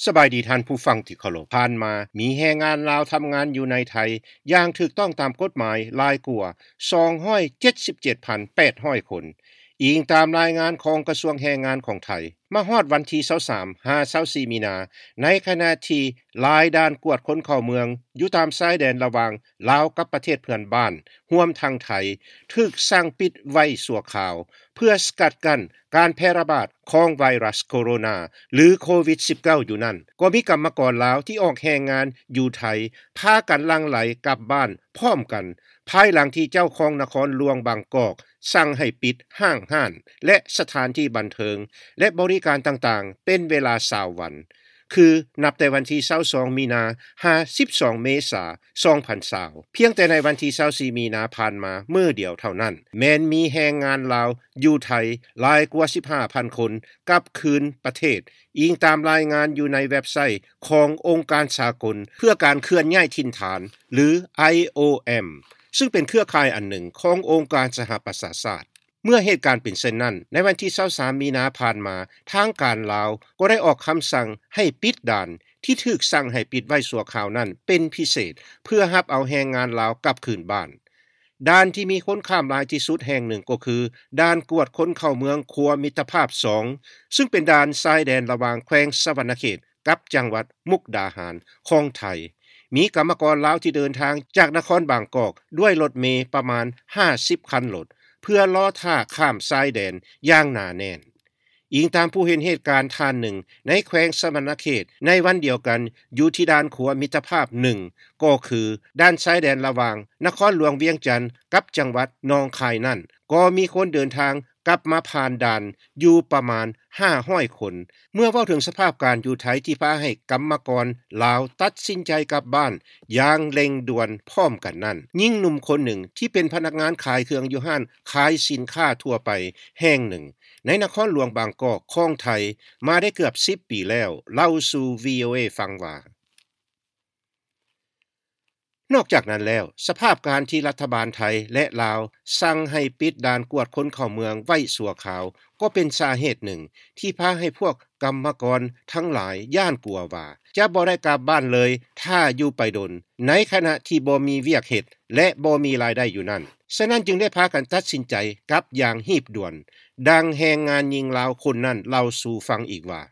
ສະບາຍດີທ່ານຜູ້ຟັງທີ່ເຄົາລົບ. ຜ່ານມາມີແຮງງານລາວທຳງານຢູ່ໃນໄທຢ່າງຖືກຕ້ອງຕາມກົດໝາຍຫຼາຍກວ່າສອງຮ້ອຍເຈັດສິບເຈັດພັນແປດຮ້ອຍຄົນ, ອີງຕາມລາຍງານຂອງກະຊວງແຮງງານຂອງໄທ. ມາຮອດວັນທີຊາວສາມຫາຊາວສີ່ມີນາ, ໃນຂະນະທີ່ຫຼາຍດ່ານກວດຄົນເຂົ້າເມືອງຢູ່ຕາມຊາຍແດນລະຫວ່າງລາວກັບປະເທດເພື່ອນບ້ານ, ຮວມທັງໄທ, ຖືກສັ່ງປິດໄວ້ຊົ່ວຄາວ ເພື່ອສະກັດກັ້ນການແຜ່ລະບາດຂອງໄວຣັສໂຄໂຣນາ ຫຼື ໂຄວິດສິບເກົ້າ ຢູ່ນັ້ນ, ກໍມີກຳມະກອນລາວທີ່ອອກແຮງງານຢູ່ໄທ ພາກັນຫຼັ່ງໄຫຼກັບບ້ານພ້ອມກັນ, ພາຍຫຼັງທີ່ເຈົ້າຄອງນະຄອນຫຼວງບາງກອກສັ່ງໃຫ້ປິດຫ້າງຮ້ານ ແລະ ສະຖານທີ່ບັນເທີງ ແລະ ບໍລິການຕ່າງໆ ເປັນເວລາຊາວວັນ. ຄືນັບແຕ່ວັນທີຊາວສອງມີນາ ຫາ ສິບສອງເມສາ ສອງພັນຊາວ. ພຽງແຕ່ໃນວັນທີຊາວສີ່ມີນາຜ່ານມາມື້ດຽວເທົ່ານັ້ນ, ແມ່ນມີແຮງງານລາວຢູ່ໄທຫຼາຍກວ່າສິບຫ້າພັນຄົນກັບຄືນປະເທດ, ອີງຕາມລາຍງານຢູ່ໃນເວັບໄຊຂອງອົງການສາກົນເພື່ອການເຄື່ອນຍ້າຍຖິ່ນຖານ ຫຼື ໄອໂອເອັມ ຊຶ່ງເປັນເຄືອຂ່າຍອັນໜຶ່ງຂອງອົງການສະຫະປະຊາຊາດ. ເມື່ອເຫດການເປັນເຊັ່ນນັ້ນ, ໃນວັນທີຊາວສາມມີນາຜ່ານມາ, ທາງການລາວກໍໄດ້ອອກຄຳສັ່ງໃຫ້ປິດດ່ານທີ່ຖືກສັ່ງໃຫ້ປິດໄວ້ຊົ່ວຄາວນັ້ນເປັນພິເສດ, ເພື່ອຮັບເອົາແຮງງານລາວກັບຄືນບ້ານ. ດ່ານທີ່ມີຄົນຂ້າມຫຼາຍທີ່ສຸດແຫ່ງໜຶ່ງກໍຄື ດ່ານກວດຄົນເຂົ້າເມືອງຂົວມິດຕະພາບສອງ, ຊຶ່ງເປັນດ່ານຊາຍແດນລະຫວ່າງແຂວງສະຫວັນນະເຂດ ກັບຈັງຫວັດມຸກດາຫານຂອງໄທ. ມີກຳມະກອນລາວທີ່ເດີນທາງຈາກນະຄອນບາງກອກດ້ວຍລົດເມປະມານຫ້າສິບຄັນລົດ ເພື່ອລໍຖ້າຂ້າມຊາຍແດນຢ່າງໜາແໜ້ນ. ອີງຕາມຜູ້ເຫັນເຫດການທ່ານໜຶ່ງໃນແຂວງສະຫວັນນະເຂດໃນວັນດຽວກັນ ຢູ່ທີ່ດ່ານຂົວມິດຕະພາບໜຶ່ງ ກໍຄືດ່ານຊາຍແດນລະຫວ່າງນະຄອນຫຼວງວຽງຈັນກັບຈັງຫວັດໜອງຄາຍນັ້ນ, ກໍມີຄົນເດີນທາງ ກັບມາຜ່ານດ່ານຢູ່ປະມານຫ້າຮ້ອຍຄົນ. ເມື່ອເວົ້າເຖິງສະພາບການຢູ່ໄທທີ່ພາໃຫ້ກຳມະກອນລາວຕັດສິນໃຈກັບບ້ານຢ່າງເລັ່ງດ່ວນພ້ອມກັນນັ້ນ, ຍິງໜຸ່ມຄົນໜຶ່ງທີ່ເປັນພະນັກງານຂາຍເຄື່ອງຢູ່ຮ້ານຂາຍສິນຄ້າທົ່ວໄປແຫ່ງໜຶ່ງໃນນະຄອນຫຼວງບາງກອກຂອງໄທມາໄດ້ເກືອບສິບປີແລ້ວ ເລົ່າສູ່ ວີໂອເອ ຟັງວ່າ ນອກຈາກນັ້ນແລ້ວ, ສະພາບການທີ່ລັດຖະບານໄທ ແລະ ລາວສັ່ງໃຫ້ປິດດ່ານກວດຄົນເຂົ້າເມືອງໄວ້ຊົ່ວຄາວ ກໍເປັນສາເຫດໜຶ່ງທີ່ພາໃຫ້ພວກກຳມະກອນທັງຫຼາຍຢ້ານກົວວ່າຈະບໍ່ໄດ້ກັບບ້ານເລີຍຖ້າຢູ່ໄປດົນ, ໃນຂະນະທີ່ບໍ່ມີວຽກເຮັດ ແລະ ບໍ່ມີລາຍໄດ້ຢູ່ນັ້ນ. ສະນັ້ນຈຶ່ງໄດ້ພາກັນຕັດສິນໃຈກັບຢ່າງຮີບດ່ວນ, ດັ່ງແຮງງານຍິງລາວຄົນນັ້ນເລົ່າສູ່ຟັງອີກວ່າ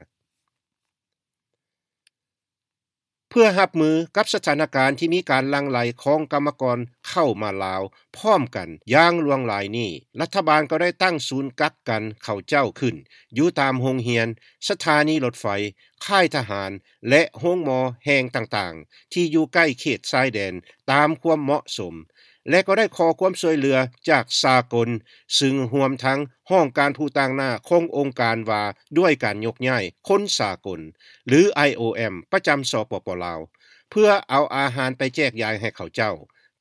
ເພື່ອຮັບມືກັບສະຖານະການທີ່ມີການຫຼັ່ງໄຫຼຂອງກຳມະກອນເຂົ້າມາລາວພ້ອມກັນຢ່າງຫຼວງຫຼາຍນີ້, ລັດຖະບານກໍໄດ້ຕັ້ງສູນກັກກັນເຂົາເຈົ້າຂຶ້ນຢູ່ຕາມໂຮງຮຽນ, ສະຖານີລົດໄຟ, ຄ້າຍທະຫານ ແລະ ໂຮງໝໍແຫ່ງຕ່າງໆ ທີ່ຢູ່ໃກ້ເຂດຊາຍແດນຕາມຄວາມເໝາະສົມ. ແລະ ກໍໄດ້ຂໍຄວາມຊ່ວຍເຫຼືອຈາກສາກົນ, ຊຶ່ງຮວມທັງຫ້ອງການຜູ້ຕາງໜ້າຂອງອົງການວ່າດ້ວຍການຍົກຍ້າຍຄົນສາກົນ ຫຼື ໄອໂອເອັມ ປະຈຳ ສປປ ລາວ ເພື່ອເອົາອາຫານໄປແຈກຢາຍໃຫ້ເຂົາເຈົ້າ.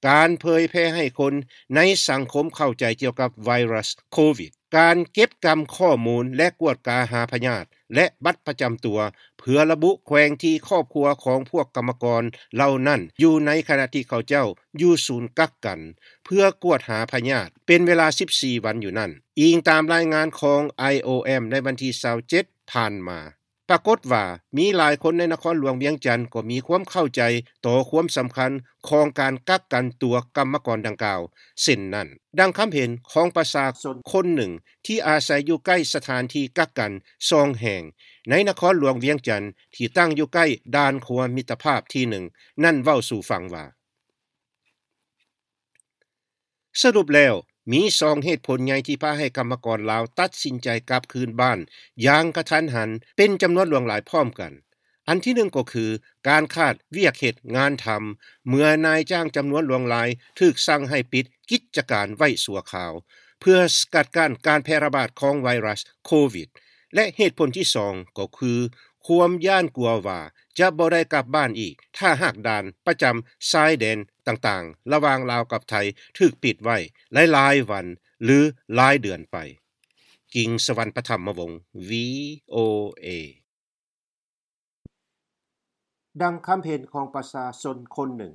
ການເຜີຍແຜ່ໃຫ້ຄົນໃນສັງຄົມເຂົ້າໃຈກ່ຽວກັບໄວຣັສໂຄວິດ, ການເກັບກຳຂໍ້ມູນ ແລະ ກວດກາຫາພະຍາດ ແລະ ບັດປະຈຳຕົວ ເພື່ອລະບຸແຂວງທີ່ຄອບຄົວຂອງພວກກຳມະກອນເຫຼົ່ານັ້ນຢູ່ໃນຂະນະທີ່ເຂົາເຈົ້າຢູ່ສູນກັກກັນ ເພື່ອກວດຫາພະຍາດເປັນເວລາສິບສີ່ວັນຢູ່ນັ້ນ, ອີງຕາມລາຍງານຂອງ ໄອໂອເອັມ ໃນວັນທີຊາວເຈັດຜ່ານມາ. ປາກົດວ່າມີຫຼາຍຄົນໃນນະຄອນຫຼວງວຽງຈັນກໍມີຄວາມເຂົ້າໃຈຕໍ່ຄວາມສຳຄັນຂອງການກັກກັນຕົວກຳມະກອນດັ່ງກ່າວເຊັ່ນນັ້ນ, ດັ່ງຄຳເຫັນຂອງປະຊາຊົນຄົນໜຶ່ງທີ່ອາໄສຢູ່ໃກ້ສະຖານທີ່ກັກກັນສອງແຫ່ງໃນນະຄອນຫຼວງວຽງຈັນ ທີ່ຕັ້ງຢູ່ໃກ້ດ່ານຂົວມິດຕະພາບທີໜຶ່ງນັ້ນເວົ້າສູ່ຟັງວ່າ ສະຫຼຸບແລ້ວ, ມີສອງເຫດຜົນໃຫຍ່ທີ່ພາໃຫ້ກຳມະກອນລາວຕັດສິນໃຈກັບຄືນບ້ານຢ່າງກະທັນຫັນເປັນຈຳນວນຫຼວງຫຼາຍພ້ອມກັນ. ອັນທີໜຶ່ງກໍຄືການຂາດວຽກເຮັດງານທຳ, ເມື່ອນາຍຈ້າງຈຳນວນຫຼວງຫຼາຍຖືກສັ່ງໃຫ້ປິດກິດຈະການໄວ້ຊົ່ວຄາວ ເພື່ອສະກັດກັ້ນການແຜ່ລະບາດຂອງໄວຣັສໂຄວິດ ແລະ ເຫດຜົນທີສອງກໍຄື ຄວາມຢ້ານກົວວ່າຈະບໍ່ໄດ້ກັບບ້ານອີກ ຖ້າຫາກດ່ານປະຈຳຊາຍແດນຕ່າງໆ ລະຫວ່າງລາວກັບໄທຖືກປິດໄວ້ຫຼາຍໆວັນ ຫຼື ຫຼາຍເດືອນໄປ. ກິ່ງສະຫວັນ ປະຖຳມະວົງ ວີໂອເອ. ດັ່ງຄຳເຫັນຂອງປະຊາຊົນຄົນໜຶ່ງ